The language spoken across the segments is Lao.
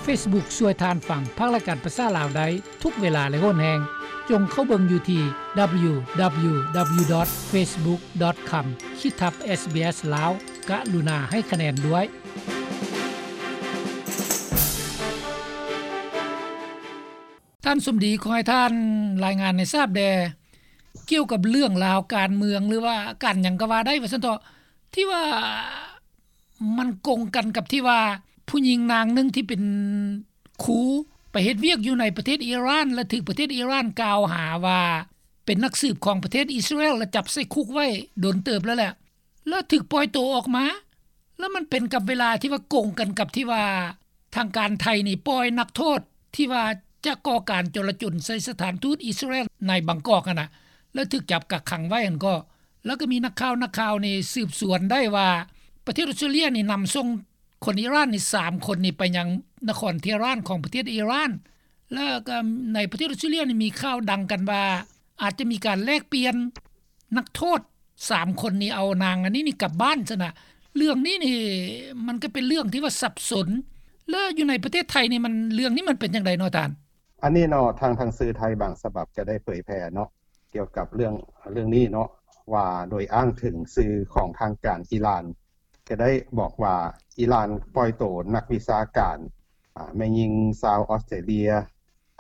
ເຟສບຸກຊ່ວຍທ່ານຟັງພາກລາຍການພາສາລາວໄດ້ທຸກເວລາ ແລະ ໂຫນແຮງ. ຈົ່ງເຂົ້າເບິ່ງຢູ່ທີ່ ດັບເບິນຢູ ດັບເບິນຢູ ດັບເບິນຢູ ດອດ ເຟສບຸກ ດອດ ຄອມ ຂີດທັບ ເອສບີເອສ ລາວ. ກະລຸນາໃຫ້ຄະແນນດ້ວຍ. ທ່ານສົມດີ ຂໍໃຫ້ທ່ານລາຍງານໃຫ້ຊາບແດ່ ກ່ຽວກັບເລື່ອງລາວການເມືອງ ຫຼືວ່າການຫຍັງກໍວ່າໄດ້ ວ່າຊັ້ນເຖາະ ທີ່ວ່າມັນກົງກັນກັບທີ່ວ່າຜູ້ຍິງນາງໜຶ່ງທີ່ເປັນຄູໄປເຮັດວຽກຢູ່ໃນປະເທດອີຣານ ແລະ ຖືກປະເທດອີຣານກ່າວຫາວ່າເປັນນັກສືບຂອງປະເທດອິດສະຣາເອລ ແລະ ຈັບໃສ່ຄຸກໄວ້ດົນເຕີບແລ້ວແຫຼະ ແລະ ຖືກປ່ອຍໂຕອອກມາ. ແລ້ວມັນເປັນກັບເວລາທີ່ວ່າກົງກັນກັບທີ່ວ່າທາງການໄທນີ້ປ່ອຍນັກໂທດທີ່ວ່າຈະກໍ່ການຈໍລະຈົນໃສ່ສະຖານທູດອິດສະຣາເອລໃນບາງກອກຫັ້ນນະ ແລ້ວຖືກຈັບກັກຂັງໄວ້ຫັ້ນກໍ ແລ້ວກໍມີນັກຂ່າວ ນັກຂ່າວນີ້ສືບສວນໄດ້ວ່າ ປະເທດອົດສະຕຣາເລຍນີ້ນຳສົ່ງຄົນອີຣານນີ້ສາມຄົນນີ້ໄປຍັງນະຄອນເທຮານຂອງປະເທດອີຣານ ແລ້ວກໍໃນປະເທດອົດສະຕຣາເລຍນີ້ມີຂ່າວດັງກັນວ່າ ອາດຈະມີການແລກປ່ຽນນັກໂທດສາມຄົນນີ້ ເອົານາງອັນນີ້ນີ້ກັບບ້ານຊັ້ນນະ. ເລື່ອງນີ້ນີ້ມັນກໍເປັນເລື່ອງທີ່ວ່າສັບສົນ ແລ້ວຢູ່ໃນປະເທດໄທນີ້ມັນ ເລື່ອງນີ້ມັນເປັນຈັ່ງໃດເນາະທ່ານ? ອັນນີ້ເນາະ ທາງ ທາງສື່ໄທບາງສະບັບຈະໄດ້ເຜີຍແຜ່ເນາະ ກ່ຽວກັບເລື່ອງ ເລື່ອງນີ້ເນາະ ວ່າໂດຍອ້າງເຖິງສື່ຂອງທາງການອີຣານ ກໍໄດ້ບອກວ່າ ອີຣານປ່ອຍໂຕນັກວິຊາການ ອາ ແມ່ຍິງຊາວອອສເຕຣເລຍ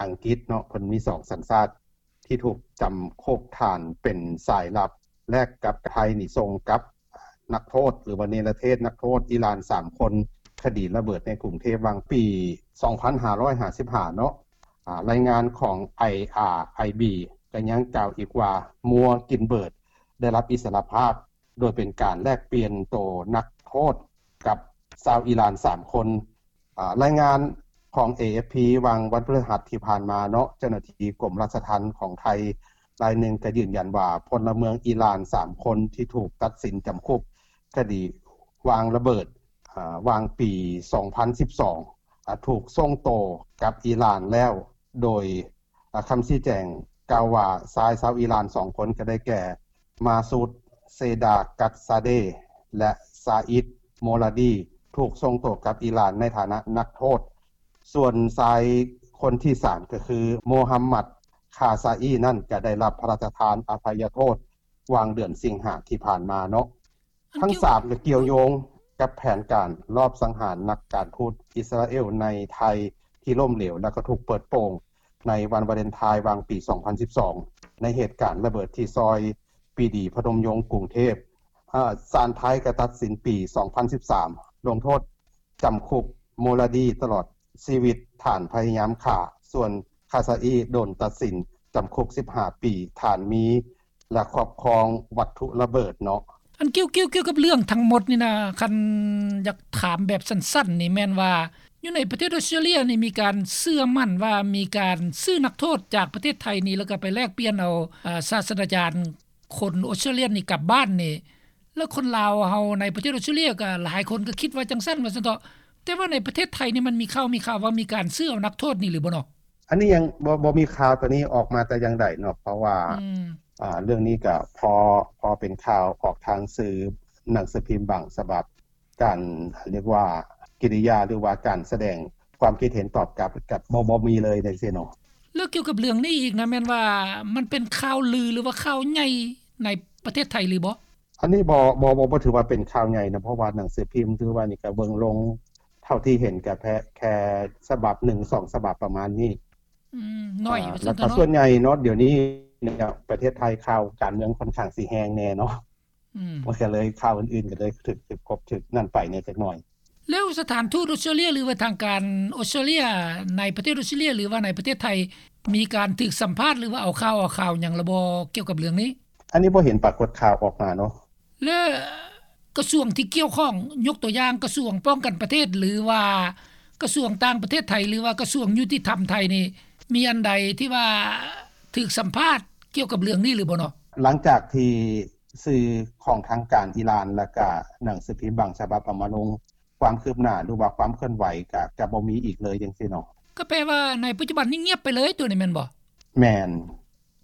ອັງກິດເນາະ ເພິ່ນມີສອງສັນຊາດ ທີ່ຖືກຈຳຄຸກຖານເປັນສາຍລັບ ແລກກັບໄທນີ້ສົ່ງກັບນັກໂທດ ຫຼືວ່າເນລະເທດນັກໂທດອີຣານສາມຄົນ ຄະດີລະເບີດໃນກຸງເທບຫວ່າງປີສອງພັນຫ້າຮ້ອຍຫ້າສິບຫ້າເນາະ. ອາ ລາຍງານຂອງ ໄອອາໄອບີ ກໍຍັງກ່າວອີກວ່າ ມົວກິນເບີດ ໄດ້ຮັບອິດສະຫຼະພາບ ໂດຍເປັນການແລກປ່ຽນໂຕນັກໂທດກັບຊາວອີຣານສາມຄົນ. ອາ ລາຍງານຂອງ ເອເອັຟພີ ຫວ່າງວັນພຶດຫັດທີ່ຜ່ານມາເນາະ ເຈົ້າໜ້າທີ່ກົມລາຊະທັນຂອງໄທລາຍໜຶ່ງກໍຢືນຢັນວ່າ ພົນລະເມືອງອີຣານສາມຄົນທີ່ຖືກຕັດສິນຈຳຄຸກຄະດີວາງລະເບີດ ອາ ຫວ່າງປີສອງພັນສິບສອງ ອາ ຖືກສົ່ງໂຕກັບອີຣານແລ້ວ ໂດຍ ອາ ຄຳຊີ້ແຈງກ່າວວ່າ ຊາຍຊາວອີຣານສອງຄົນ ກໍໄດ້ແກ່ ມາຊູດ ເຊດາກັດຊາເດ ແລະ ຊາອິດ ໂມລາດີ ຖືກສົ່ງໂຕກັບອີຣານໃນຖານະນັກໂທດ. ສ່ວນຊາຍຄົນທີສາມ ກໍຄື ໂມຮຳມັດ ຄາຊາອີ ນັ້ນ ກໍໄດ້ຮັບພະລາຊະທານອະໄພຍະໂທດ ຫວ່າງເດືອນສິງຫາທີ່ຜ່ານມາເນາະ. ທັງສາມກໍກ່ຽວໂຍງກັບແຜນການລອບສັງຫານນັກການທູດອິດສະຣາເອລໃນໄທທີ່ລົ້ມເຫຼວ ແລະ ກໍຖືກເປີດໂປງໃນວັນວາເລັນທາຍຫວ່າງປີສອງພັນສິບສອງ ໃນເຫດການລະເບີດທີ່ຊອຍປີດີ ພະນົມຍົງ ກຸງເທບ. ອາ ສານໄທກໍຕັດສິນປີສອງພັນສິບສາມ ລົງໂທດຈຳຄຸກ ໂມລາດີ ຕະຫຼອດຊີວິດ ຖານພະຍາຍາມຂ້າ, ສ່ວນ ຄາຊາອີ ໂດນຕັດສິນຈຳຄຸກສິບຫ້າປີ ຖານມີ ແລະ ຄອບຄອງວັດຖຸລະເບີດເນາະ. ອັນກ່ຽວ ກ່ຽວ ກ່ຽວກັບເລື່ອງທັງໝົດນີ້ນະ ຄັນຢາກຖາມແບບສັ້ນໆນີ້ແມ່ນວ່າ ຢູ່ໃນປະເທດອົດສະຕຣາເລຍນີ້ມີການເຊື່ອໝັ້ນວ່າມີການຊື້ນັກໂທດຈາກປະເທດໄທນີ້ ແລ້ວກໍໄປແລກປ່ຽນເອົາ ເອີ ສາດສະດາຈານຄົນອົດສະຕຣາເລຍນີ້ກັບບ້ານນີ້ ແລ້ວຄົນລາວເຮົາໃນປະເທດອົດສະຕຣາເລຍກໍຫຼາຍຄົນກໍຄິດວ່າຈັ່ງຊັ້ນ ວ່າຊັ້ນເຖາະ. ແຕ່ວ່າໃນປະເທດໄທນີ້ມັນມີຂ່າວ ມີຂ່າວວ່າມີການຊື້ເອົານັກໂທດນີ້ຫຼືບໍ່ເນາະ? ອັນນີ້ຍັງບໍ່ ບໍ່ມີຂ່າວຕົວນີ້ອອກມາແຕ່ຢ່າງໃດເນາະ ເພາະວ່າ ອືມ ອາ ເລື່ອງນີ້ກໍພໍ ພໍເປັນຂ່າວອອກທາງສື່ໜັງສືພິມບາງສະບັບ ການ ເອີ້ນວ່າ ກິລິຍາ ຫຼືວ່າການສະແດງຄວາມຄິດເຫັນຕອບກັບ ກັບບໍ່ ບໍ່ມີເລີຍຈັ່ງຊີ້ເນາະ. ແລ້ວກ່ຽວກັບເລື່ອງນີ້ອີກນະ ແມ່ນວ່າມັນເປັນຂ່າວລື ຫຼືວ່າຂ່າວໃຫຍ່ໃນປະເທດໄທຫຼືບໍ່? ອັນນີ້ບໍ່ ບໍ່ ບໍ່ ບໍ່ຖືວ່າເປັນຂ່າວໃຫຍ່ນະ ເພາະວ່າໜັງສືພິມຖືວ່ານີ້ກໍເບິ່ງລົງ ເທົ່າທີ່ເຫັນກໍແຄ່ ແຄ່ສະບັບໜຶ່ງສອງສະບັບປະມານນີ້. ອືມ ໜ້ອຍ ອາ ວ່າຊັ້ນເຖາະເນາະ. ແລ້ວກໍສ່ວນໃຫຍ່ເນາະ ດຽວນີ້ເນຍ ປະເທດໄທຂ່າວການເມືອງຄ່ອນຂ້າງຊິແຮງແດ່ເນາະ. ອືມ ມັນກໍເລີຍ ຂ່າວອື່ນໆກໍເລີຍຖືກ ຖືກກົບ ຖືກນັ້ນໄປແດ່ຈັກໜ້ອຍ. ແລ້ວສະຖານທູດອົດສະຕຣາເລຍ ຫຼືວ່າທາງການອົດສະຕຣາເລຍໃນປະເທດອົດສະຕຣາເລຍ ຫຼືວ່າໃນປະເທດໄທ ມີການຖືກສຳພາດ ຫຼືວ່າເອົາຂ່າວ ເອົາຂ່າວຫຍັງລະບໍ່ ກ່ຽວກັບເລື່ອງນີ້? ອັນນີ້ບໍ່ເຫັນປາກົດຂ່າວອອກມາເນາະ. ແລະ ກະຊວງທີ່ກ່ຽວຂ້ອງ ຍົກຕົວຢ່າງກະຊວງປ້ອງກັນປະເທດ ຫຼືວ່າກະຊວງຕ່າງປະເທດໄທ ຫຼືວ່າກະຊວງຍຸຕິທຳໄທນີ້ ມີອັນໃດທີ່ວ່າຖືກສຳພາດກ່ຽວກັບເລື່ອງນີ້ຫຼືບໍ່ເນາະ? ຫຼັງຈາກທີ່ສື່ຂອງທາງການອີຣານ ແລ້ວກະໜັງສືພິມບາງສະບັບເອົາມາລົງ ຄວາມຄືບໜ້າ ຫຼືວ່າຄວາມເຄື່ອນໄຫວກະ ກະບໍ່ມີອີກເລີຍຈັ່ງຊີ້ເນາະ. ກໍແປວ່າໃນປັດຈຸບັນນີ້ງຽບໄປເລີຍ ຕົວນີ້ແມ່ນບໍ່? ແມ່ນ.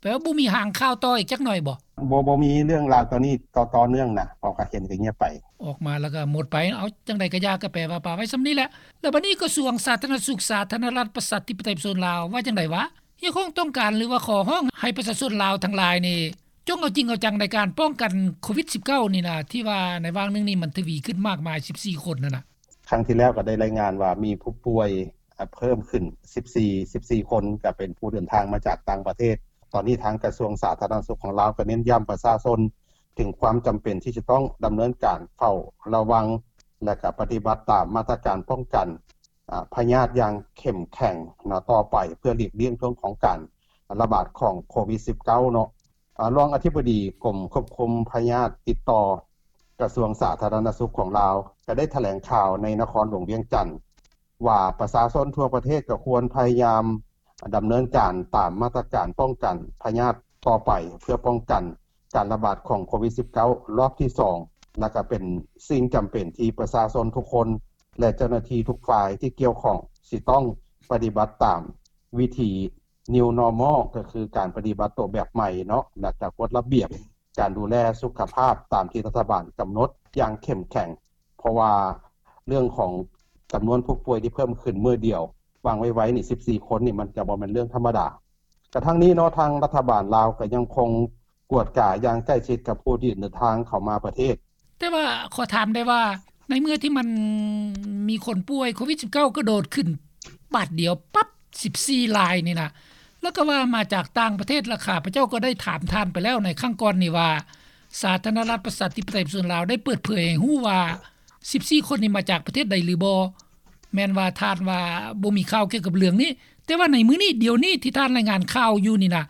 ແປວ່າບໍ່ມີຫາງຂ່າວຕໍ່ອີກຈັກໜ້ອຍບໍ່? ບໍ່ ບໍ່ມີເລື່ອງລາວຕອນນີ້ຕໍ່ ຕໍ່ເນື່ອງນະ ເພາະກະເຫັນກະງຽບໄປ ອອກມາແລ້ວກະໝົດໄປ. ເອົາ ຈັ່ງໃດກະຢ່າ ກະແປວ່າປະໄວ້ສ່ຳນີ້ແຫຼະ. ແລ້ວບັດນີ້ກະຊວງສາທາລະນະສຸກ ສາທາລະນະລັດ ປະຊາທິປະໄຕ ປະຊາຊົນລາວ ວ່າຈັ່ງໃດວະ? ຮຽກຮ້ອງຕ້ອງການ ຫຼືວ່າຂໍຮ້ອງໃຫ້ປະຊາຊົນລາວທັງຫຼາຍນີ້ ຈົ່ງເອົາຈິງເອົາຈັງໃນການປ້ອງກັນໂຄວິດສິບເກົ້ານີ້ນະ ທີ່ວ່າໃນຫວ່າງໜຶ່ງນີ້ມັນທະວີຂຶ້ນມາກມາຍສິບສີ່ຄົນຫັ້ນນະ. ຄັ້ງທີ່ແລ້ວກໍໄດ້ລາຍງານວ່າມີຜູ້ປ່ວຍ ອາ ເພີ່ມຂຶ້ນສິບສີ່ ສິບສີ່ຄົນ ກໍເປັນຜູ້ເດີນທາງມາຈາກຕ່າງປະເທດ. ຕອນນີ້ທາງກະຊວງສາທາລະນະສຸກຂອງລາວກໍເນັ້ນຢ້ຳປະຊາຊົນເຖິງຄວາມຈຳເປັນທີ່ຈະຕ້ອງດຳເນີນການເຝົ້າລະວັງ ແລະ ກໍປະຕິບັດຕາມມາດຕະການປ້ອງກັນ ອາ ພະຍາດຢ່າງເຂັ້ມແຂງເນາະ ຕໍ່ໄປ ເພື່ອຫຼີກລ່ຽງເລື່ອງຂອງການລະບາດຂອງໂຄວິດສິບເກົ້າເນາະ. ອາ ຮອງອະທິບໍດີກົມຄວບຄຸມພະຍາດຕິດຕໍ່ ກະຊວງສາທາລະນະສຸກຂອງລາວ ກໍໄດ້ຖະແຫຼງຂ່າວໃນນະຄອນຫຼວງວຽງຈັນ ວ່າປະຊາຊົນທົ່ວປະເທດກໍຄວນພະຍາຍາມດຳເນີນການຕາມມາດຕະການປ້ອງກັນພະຍາດຕໍ່ໄປ ເພື່ອປ້ອງກັນການລະບາດຂອງໂຄວິດສິບເກົ້າ ລອບທີສອງ ແລະ ກໍເປັນສິ່ງຈຳເປັນທີ່ປະຊາຊົນທຸກຄົນ ແລະ ເຈົ້າໜ້າທີ່ທຸກຝ່າຍທີ່ກ່ຽວຂ້ອງ ຊິຕ້ອງປະຕິບັດຕາມວິທີ New Normal ກໍຄືການປະຕິບັດໂຕແບບໃໝ່ເນາະ ແລະ ກໍກົດລະບຽບ ການດູແລສຸຂະພາບຕາມທີ່ລັດຖະບານກຳນົດຢ່າງເຂັ້ມແຂງ ເພາະວ່າເລື່ອງຂອງຈຳນວນຜູ້ປ່ວຍທີ່ເພີ່ມຂຶ້ນມື້ດຽວ ຫວ່າງໄວໆນີ້ສິບສີ່ຄົນນີ້ ມັນກະບໍ່ແມ່ນເລື່ອງທຳມະດາ. ກະທັງນີ້ເນາະ ທາງລັດຖະບານລາວກໍຍັງຄົງກວດກາຢ່າງໃກ້ຊິດກັບຜູ້ທີ່ເດີນທາງເຂົ້າມາປະເທດ. ແຕ່ວ່າຂໍຖາມໄດ້ວ່າ ໃນເມື່ອທີ່ມັນມີຄົນປ່ວຍໂຄວິດສິບເກົ້າກະໂດດຂຶ້ນບາດດຽວປັບ ສິບສີ່ລາຍນີ້ນະ ແລ້ວກໍວ່າມາຈາກຕ່າງປະເທດ ແລະ ຂ້າພະເຈົ້າກໍໄດ້ຖາມທ່ານໄປແລ້ວໃນຄັ້ງກ່ອນນີ້ວ່າ ສາທາລະນະລັດປະຊາທິປະໄຕປະຊາຊົນລາວໄດ້ເປີດເຜີຍໃຫ້ຮູ້ວ່າ ສິບສີ່ຄົນນີ້ມາຈາກປະເທດໃດຫຼືບໍ່? ແມ່ນວ່າທ່ານວ່າບໍ່ມີຂ່າວກ່ຽວກັບເລື່ອງນີ້ ແຕ່ວ່າໃນມື້ນີ້ ດຽວນີ້ທີ່ທ່ານລາຍງານຂ່າວຢູ່ນີ້ນະ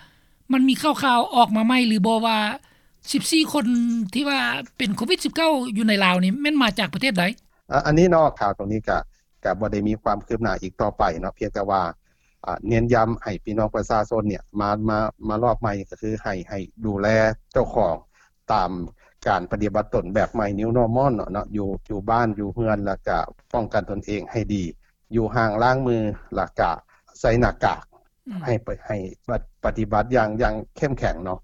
ມັນມີຂ່າວໆອອກມາໃໝ່ຫຼືບໍ່ວ່າ ສິບສີ່ຄົນທີ່ວ່າເປັນໂຄວິດສິບເກົ້າຢູ່ໃນລາວນີ້ ແມ່ນມາຈາກປະເທດໃດ? ອາ ອັນນີ້ເນາະ ຂ່າວຕົງນີ້ກະ ກະບໍ່ໄດ້ມີຄວາມຄືບໜ້າອີກຕໍ່ໄປເນາະ ພຽງແຕ່ວ່າ ອາ ເນັ້ນຢ້ຳໃຫ້ພີ່ນ້ອງປະຊາຊົນເນ່ຍ ມາ ມາ ມາລອບໃໝ່ ກໍຄືໃຫ້ ໃຫ້ດູແລເຈົ້າຂອງຕາມການປະຕິບັດຕົນແບບໃໝ່ New Normal ເນາະ ເນາະ ຢູ່ ຢູ່ບ້ານຢູ່ເຮືອນ ແລ້ວກະປ້ອງກັນຕົນເອງໃຫ້ດີ ຢູ່ຫ່າງ ລ້າງມື ແລ້ວກະໃສ່ໜ້າກາກ ອືມ ໃຫ້ປະ ໃຫ້ປະ ປະຕິບັດຢ່າງ ຢ່າງເຂັ້ມແຂງເນາະ.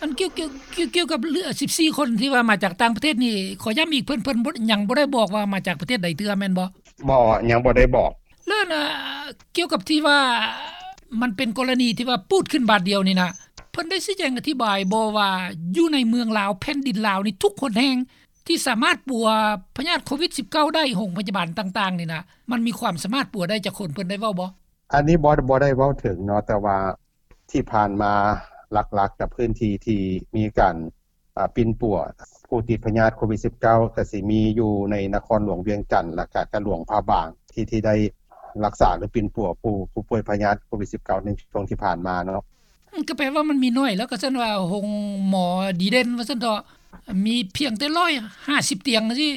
ອັນກ່ຽວ ກ່ຽວ ກ່ຽວ ກ່ຽວກັບເລື່ອງສິບສີ່ຄົນທີ່ວ່າມາຈາກຕ່າງປະເທດນີ້ ຂໍຢ້ຳອີກ ເພິ່ນ ເພິ່ນບໍ່ ຍັງບໍ່ໄດ້ບອກວ່າມາຈາກປະເທດໃດເທື່ອແມ່ນບໍ່? ບໍ່ ຍັງບໍ່ໄດ້ບອກ. ແລ້ວນະ ກ່ຽວກັບທີ່ວ່າມັນເປັນກໍລະນີທີ່ວ່າປູດຂຶ້ນບາດດຽວນີ້ນະ ເພິ່ນໄດ້ຊີ້ແຈງອະທິບາຍບໍ່ວ່າ ຢູ່ໃນເມືອງລາວ ແຜ່ນດິນລາວນີ້ ທຸກຫົນແຫ່ງທີ່ສາມາດປົວພະຍາດໂຄວິດສິບເກົ້າໄດ້ ໂຮງພະຍາບານຕ່າງໆນີ້ນະ ມັນມີຄວາມສາມາດປົວໄດ້ຈັກຄົນ ເພິ່ນໄດ້ເວົ້າບໍ່? ອັນນີ້ບໍ່ ບໍ່ໄດ້ເວົ້າເຖິງເນາະ ແຕ່ວ່າທີ່ຜ່ານມາຫຼັກໆກັບພື້ນທີ່ທີ່ມີການ ອາ ປິ່ນປົວຜູ້ຕິດພະຍາດໂຄວິດສິບເກົ້າ ກະຊິມີຢູ່ໃນນະຄອນຫຼວງວຽງຈັນ ແລະກະ ກະຫຼວງພະບາງ ທີ່ ທີ່ໄດ້ຮັກສາ ຫຼື ປິ່ນປົວຜູ້ ຜູ້ປ່ວຍພະຍາດໂຄວິດສິບເກົ້າ ໃນຊ່ວງທີ່ຜ່ານມາເນາະ. ອືມ ກໍແປວ່າມັນມີໜ້ອຍ ແລ້ວກໍຊັ້ນວ່າໂຮງໝໍດີເດັ່ນວ່າຊັ້ນເຖາະ ມີພຽງແຕ່ຮ້ອຍຫ້າສິບຕຽງຊີ້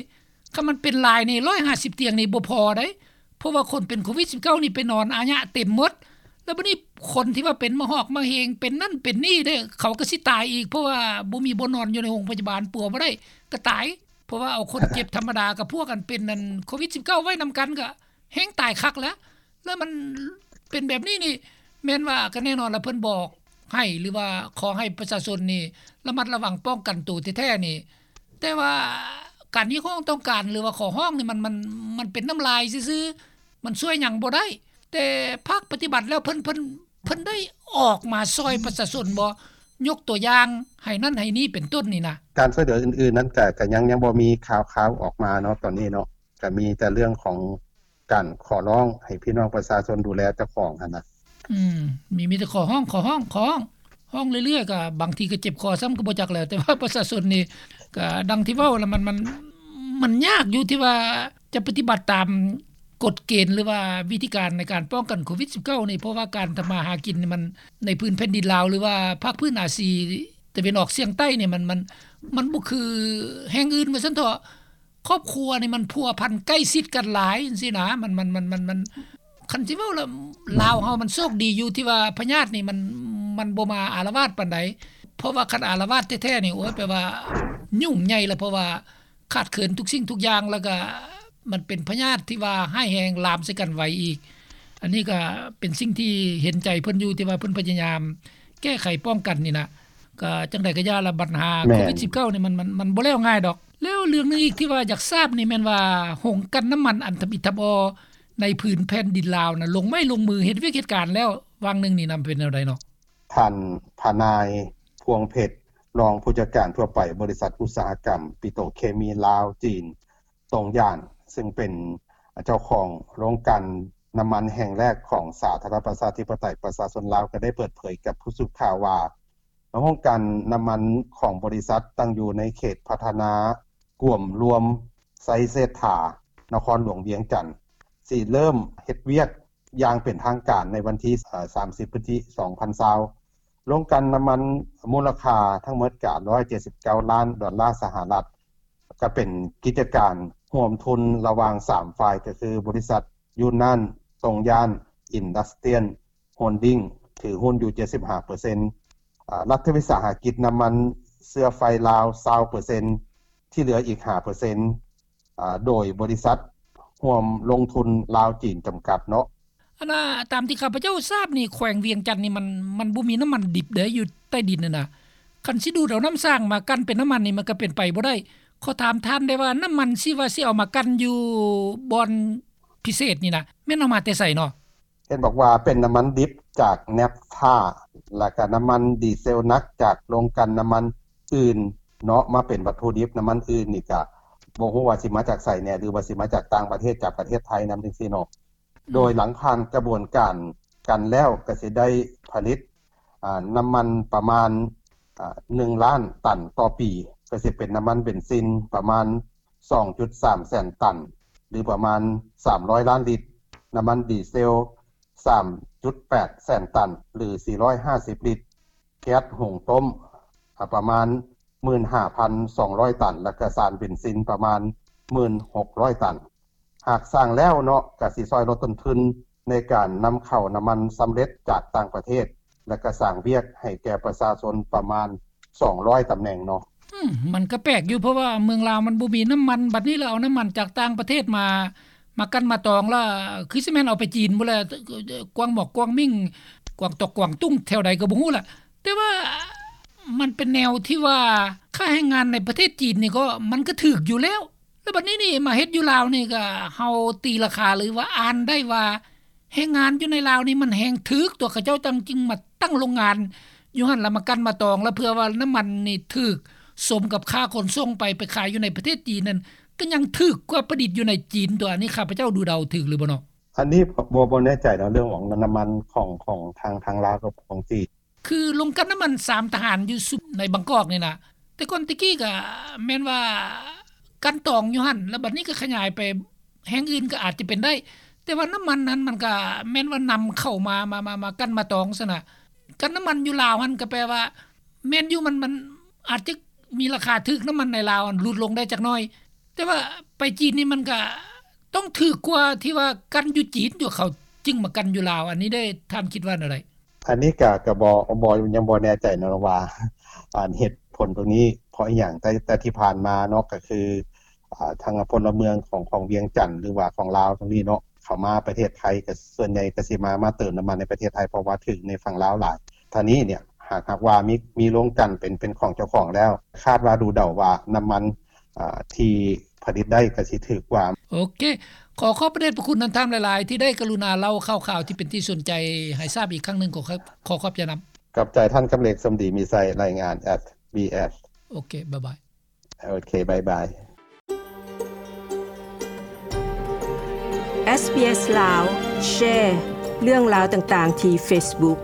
ຄັນມັນເປັນຫຼາຍນີ້ ຮ້ອຍຫ້າສິບຕຽງນີ້ບໍ່ພໍໃດ ເພາະວ່າຄົນເປັນໂຄວິດສິບເກົ້ານີ້ໄປນອນອາຍະເຕັມໝົດ ແລ້ວບັດນີ້ຄົນທີ່ວ່າເປັນມະຫອກມະເຮັງ ເປັນນັ້ນເປັນນີ້ເດ້ ເຂົາກໍຊິຕາຍອີກ ເພາະວ່າບໍ່ມີບ່ອນນອນຢູ່ໃນໂຮງພະຍາບານ ປົວບໍ່ໄດ້ກໍຕາຍ ເພາະວ່າເອົາຄົນເຈັບທຳມະດາກັບພວກອັນເປັນອັນໂຄວິດສິບເກົ້າໄວ້ນຳກັນ ກໍແຮ່ງຕາຍຄັກແລ້ວ ແລ້ວມັນເປັນແບບນີ້ນີ້ ແມ່ນວ່າກໍແນ່ນອນລະ ເພິ່ນບອກໃຫ້ ຫຼືວ່າຂໍໃຫ້ປະຊາຊົນນີ້ລະມັດລະວັງປ້ອງກັນໂຕແທ້ໆນີ້ ແຕ່ວ່າການຮຽກຮ້ອງຕ້ອງການ ຫຼືວ່າຂໍຮ້ອງນີ້ ມັນ ມັນ ມັນເປັນນ້ຳລາຍຊື່ໆ ມັນຊ່ວຍຫຍັງບໍ່ໄດ້ ແຕ່ພາກປະຕິບັດແລ້ວ ເພິ່ນ ເພິ່ນ ເພິ່ນໄດ້ອອກມາຊ່ອຍປະຊາຊົນບໍ່? ຍົກຕົວຢ່າງໃຫ້ນັ້ນໃຫ້ນີ້ເປັນຕົ້ນນີ້ນະ. ການຊ່ວຍເຫຼືອອື່ນໆນັ້ນ ກະ ກະຍັງ ຍັງບໍ່ມີຂ່າວຄາວອອກມາເນາະ ຕອນນີ້ເນາະ ກະມີແຕ່ເລື່ອງຂອງ ການຂໍຮ້ອງໃຫ້ພີ່ນ້ອງປະຊາຊົນດູແລເຈົ້າຂອງຫັ້ນນະ. ອືມ ມີ ມີແຕ່ຂໍຮ້ອງ ຂໍຮ້ອງ ຂໍຮ້ອງ ຮ້ອງເລື້ອຍໆ ກໍບາງທີກໍເຈັບຄໍຊ້ຳກໍບໍ່ຈັກແຫຼະ ແຕ່ວ່າປະຊາຊົນນີ້ກໍດັ່ງທີ່ເວົ້າລະ ມັນ ມັນ ມັນຍາກຢູ່ທີ່ວ່າຈະປະຕິບັດຕາມກົດເກນ ຫຼືວ່າວິທີການໃນການປ້ອງກັນໂຄວິດສິບເກົ້ານີ້ ເພາະວ່າການທຳມາຫາກິນນີ້ ມັນໃນພື້ນແຜ່ນດິນລາວ ຫຼືວ່າພາກພື້ນອາຊີຕາເວັນອອກສຽງໃຕ້ນີ້ ມັນ ມັນ ມັນບໍ່ຄືແຫ່ງອື່ນວ່າຊັ້ນເຖາະ. ຄອບຄົວນີ້ມັນພົວພັນໃກ້ຊິດກັນຫຼາຍຈັ່ງຊີ້ນະ ມັນ ມັນ ມັນ ມັນ ມັນ ຄັນຊິເວົ້າລະ ລາວເຮົາມັນໂຊກດີຢູ່ທີ່ວ່າພະຍາດນີ້ມັນ ມັນບໍ່ມາອາລະວາດປານໃດ ເພາະວ່າຄັນອາລະວາດແທ້ໆນີ້ ໂອ້ຍ ແປວ່າຫຍຸ້ງໃຫຍ່ລະ ເພາະວ່າຂາດເຂີນທຸກສິ່ງທຸກຢ່າງ ແລ້ວກະມັນເປັນພະຍາດທີ່ວ່າຮ້າຍແຮງ ລາມໃສ່ກັນໄວອີກ. ອັນນີ້ກະເປັນສິ່ງທີ່ເຫັນໃຈເພິ່ນຢູ່ ທີ່ວ່າເພິ່ນພະຍາຍາມ ແກ້ໄຂປ້ອງກັນນີ້ນະ. ກໍຈັ່ງໃດກໍຢ່າລະ ບັນຫາ ແມ່ນ ໂຄວິດສິບເກົ້ານີ້ ມັນ ມັນ ມັນບໍ່ແລ້ວງ່າຍດອກ. ແລ້ວເລື່ອງໜຶ່ງອີກທີ່ວ່າຢາກຊາບນີ້ແມ່ນວ່າ ໂຮງກັ່ນນ້ຳມັນອັນທຳອິດທຳອໍໃນພື້ນແຜ່ນດິນລາວນະ ລົງໄມ້ລົງມືເຮັດວຽກເຮັດການແລ້ວ ຫວ່າງໜຶ່ງນີ້ນຳ ເປັນແນວໃດເນາະ? ທ່ານ ພະນາຍ ພວງເພັດ ຮອງຜູ້ຈັດການທົ່ວໄປບໍລິສັດອຸດສາຫະກຳປິໂຕເຄມີລາວ-ຈີນ ຕົງຢານ ຊຶ່ງເປັນເຈົ້າຂອງໂຮງກັ່ນນ້ຳມັນແຫ່ງແລກຂອງສາທາລະນະລັດປະຊາທິປະໄຕປະຊາຊົນລາວ ກໍໄດ້ເປີດເຜີຍກັບຜູ້ສື່ຂ່າວວ່າ ໂຮງກັ່ນນ້ຳມັນຂອງບໍລິສັດຕັ້ງຢູ່ໃນເຂດພັດທະນາກວມລວມໄຊເສດຖາ ນະຄອນຫຼວງວຽງຈັນ ຊິເລີ່ມເຮັດວຽກຢ່າງເປັນທາງການໃນວັນທີ ສາມສິບ ພຶດສະຈິກາ ສອງພັນຊາວ. ໂຮງກັ່ນນ້ຳມັນມູນລະຄ່າທັງໝົດກະ ຮ້ອຍເຈັດສິບເກົ້າລ້ານດອນລາສະຫະລັດ ກະເປັນກິດຈະການຮ່ວມທຶນລະຫວ່າງສາມຝ່າຍ ກະຄືບໍລິສັດຢູນນານ ຕົງຢານ ອິນດັສຕຣຽນ ໂຮນດິງ ຖືຫຸ້ນຢູ່ເຈັດສິບຫ້າເປີເຊັນ, ອາ ລັດວິສາຫະກິດນ້ຳມັນເຊື້ອໄຟລາວ ຊາວເປີເຊັນ, ທີ່ເຫຼືອອີກຫ້າເປີເຊັນ ອາ ໂດຍບໍລິສັດຮ່ວມລົງທຶນລາວ-ຈີນ ຈຳກັດເນາະ. ອັນນ່າ ຕາມທີ່ຂ້າພະເຈົ້າຊາບນີ້ ແຂວງວຽງຈັນນີ້ມັນ ມັນບໍ່ມີນ້ຳມັນດິບເດ້ ຢູ່ໃຕ້ດິນຫັ້ນນະ. ຄັນຊິດູດເອົານ້ຳສ້າງມາກັ່ນເປັນນ້ຳມັນນີ້ ມັນກໍເປັນໄປບໍ່ໄດ້. ຂໍຖາມທ່ານໄດ້ວ່າ ນ້ຳມັນທີ່ວ່າຊິເອົາມາກັ່ນຢູ່ບ່ອນພິເສດນີ້ນະ ແມ່ນເອົາມາແຕ່ໃສເນາະ? ເຫັນບອກວ່າເປັນນ້ຳມັນດິບຈາກແນັບທາ ແລ້ວກະນ້ຳມັນດີເຊວໜັກຈາກໂຮງກັ່ນນ້ຳມັນອື່ນເນາະ ມາເປັນວັດຖຸດິບນ້ຳມັນອື່ນນີ້ກະບໍ່ຮູ້ວ່າຊິມາຈາກໃສແດ່ ຫຼືວ່າຊິມາຈາກຕ່າງປະເທດ ຈາກປະເທດໄທນຳຈັ່ງຊີ້ເນາະ. ອືມ ໂດຍຫຼັງຜ່ານກະບວນການກັ່ນແລ້ວກະຊິໄດ້ຜະລິດ ອາ ນ້ຳມັນປະມານ ອາ ໜຶ່ງລ້ານຕັນຕໍ່ປີ ກະຊິເປັນນ້ຳມັນເບັນຊິນປະມານ ສອງຈຸດສາມແສນຕັນ ຫຼືປະມານສາມຮ້ອຍລ້ານລິດ, ນ້ຳມັນດີເຊວ ສາມຈຸດແປດແສນຕັນ ຫຼືສີ່ຮ້ອຍຫ້າສິບລິດ, ແກັສຫຸງຕົ້ມ ອາ ປະມານ ໝື່ນຫ້າພັນສອງຮ້ອຍຕັນ ແລ້ວກະສານເບັນຊິນປະມານ ໝື່ນຫົກຮ້ອຍຕັນ. ຫາກສ້າງແລ້ວເນາະ ກະຊິຊ່ອຍລົດຕົ້ນທຶນໃນການນຳເຂົ້ານ້ຳມັນສຳເລັດຈາກຕ່າງປະເທດ ແລ້ວກະສ້າງວຽກໃຫ້ແກ່ປະຊາຊົນປະມານ ສອງຮ້ອຍຕຳແໜ່ງເນາະ. ອືມ ມັນກໍແປກຢູ່ ເພາະວ່າເມືອງລາວມັນບໍ່ມີນ້ຳມັນ ບັດນີ້ລະເອົານ້ຳມັນຈາກຕ່າງປະເທດມາ ມາກັ່ນມາຕອງລະ ຄືຊິແມ່ນເອົາໄປຈີນພຸ້ນລະ ກວາງໝອກກວາງມິ້ງ ກວາງຕອກກວາງຕຸ້ງ ແຖວໃດກໍບໍ່ຮູ້ລະ. ແຕ່ວ່າມັນເປັນແນວທີ່ວ່າ ຄ່າແຮງງານໃນປະເທດຈີນນີ້ກໍ ມັນກໍຖືກຢູ່ແລ້ວ ແລ້ວບັດນີ້ນີ້ມາເຮັດຢູ່ລາວນີ້ກໍ ເຮົາຕີລາຄາ ຫຼືວ່າອ່ານໄດ້ວ່າ ແຮງງານຢູ່ໃນລາວນີ້ມັນແຮງຖືກຕົວະ ເຂົາເຈົ້າຈັ່ງຈຶ່ງມາຕັ້ງໂລງງານຢູ່ຫັ້ນ ແລ້ວມາກັ່ນມາຕອງ ແລ້ວເພື່ອວ່ານ້ຳມັນນີ້ຖືກສົມກັບຄ່າຂົນສົ່ງໄປ ໄປຂາຍຢູ່ໃນປະເທດຈີນນັ້ນ ກໍຍັງຖືກກວ່າຜະລິດຢູ່ໃນຈີນຕົວະ. ອັນນີ້ຂ້າພະເຈົ້າດູເດົາຖືກຫຼືບໍ່ເນາະ? ອັນນີ້ບໍ່ ບໍ່ແນ່ໃຈເນາະ ເລື່ອງຂອງນ້ຳມັນຂອງ ຂອງທາງ ທາງລາວກັບຂອງຈີນ. ຄືໂຮງກັ່ນນ້ຳມັນສາມທະຫານຢູ່ສຸ ໃນບາງກອກນີ້ນະ ແຕ່ກ່ອນແຕ່ກີ້ກະແມ່ນວ່າກັ່ນຕອງຢູ່ຫັ້ນ ແລ້ວບັດນີ້ກໍຂະຫຍາຍໄປແຫ່ງອື່ນກໍອາດຈະເປັນໄດ້ ແຕ່ວ່ານ້ຳມັນຫັ້ນມັນກະແມ່ນວ່ານຳເຂົ້າມາ ມາ ມາ ມາກັ່ນມາຕອງຊັ້ນນະ. ກັ່ນນ້ຳມັນຢູ່ລາວຫັ້ນກໍແປວ່າແມ່ນຢູ່ ມັນ ມັນອາດຈະມີລາຄາຖືກ ນ້ຳມັນໃນລາວຫັ້ນຫຼຸດລົງໄດ້ຈັກໜ້ອຍ ແຕ່ວ່າໄປຈີນນີ້ມັນກະຕ້ອງຖືກກວ່າທີ່ວ່າກັ່ນຢູ່ຈີນຢູ່ ເຂົາຈຶ່ງມາກັ່ນຢູ່ລາວ. ອັນນີ້ເດ້ ທ່ານຄິດວ່າແນວໃດ? ອັນນີ້ກະ ກະບໍ່ ບໍ່ ຍັງບໍ່ແນ່ໃຈເນາະວ່າ ອັນເຫດຜົນຕົງນີ້ເພາະອີ່ຫຍັງ ແຕ່ ແຕ່ທີ່ຜ່ານມາເນາະ ກະຄື ອາ ທາງພົນລະເມືອງຂອງ ຂອງວຽງຈັນ ຫຼືວ່າຂອງລາວຕົງນີ້ເນາະ ເຂົ້າມາປະເທດໄທ ກະສ່ວນໃຫຍ່ກະຊິມາ ມາເຕີມນ້ຳມັນໃນປະເທດໄທ ເພາະວ່າຖືກໃນຝັ່ງລາວຫຼາຍ. ທາງນີ້ເນຍ ຫາກ ຫາກວ່າມີ ມີໂຮງກັ່ນເປັນ ເປັນຂອງເຈົ້າຂອງແລ້ວ ຄາດວ່າ ດູເດົາວ່ານ້ຳມັນ ອາ ທີ່ຜະລິດໄດ້ກະຊິຖືກກວ່າ. ໂອເຄ ຂໍຂອບພະເດດພະຄຸນນຳທ່ານຫຼາຍໆ ທີ່ໄດ້ກະລຸນາເລົ່າຂ່າວໆ ທີ່ເປັນທີ່ສົນໃຈໃຫ້ຊາບອີກຄັ້ງໜຶ່ງ. ຂໍ ຂໍຂອບໃຈນຳ. ຂອບໃຈທ່ານ ກຳເລັກ ສົມດີມີໄຊ ລາຍງານ ເອສບີເອສ. ໂອເຄ ບາຍບາຍ. ໂອເຄ ບາຍບາຍ. ເອສບີເອສ ລາວ ແຊເລື່ອງລາວຕ່າງໆ ທີ່ເຟສບຸກ.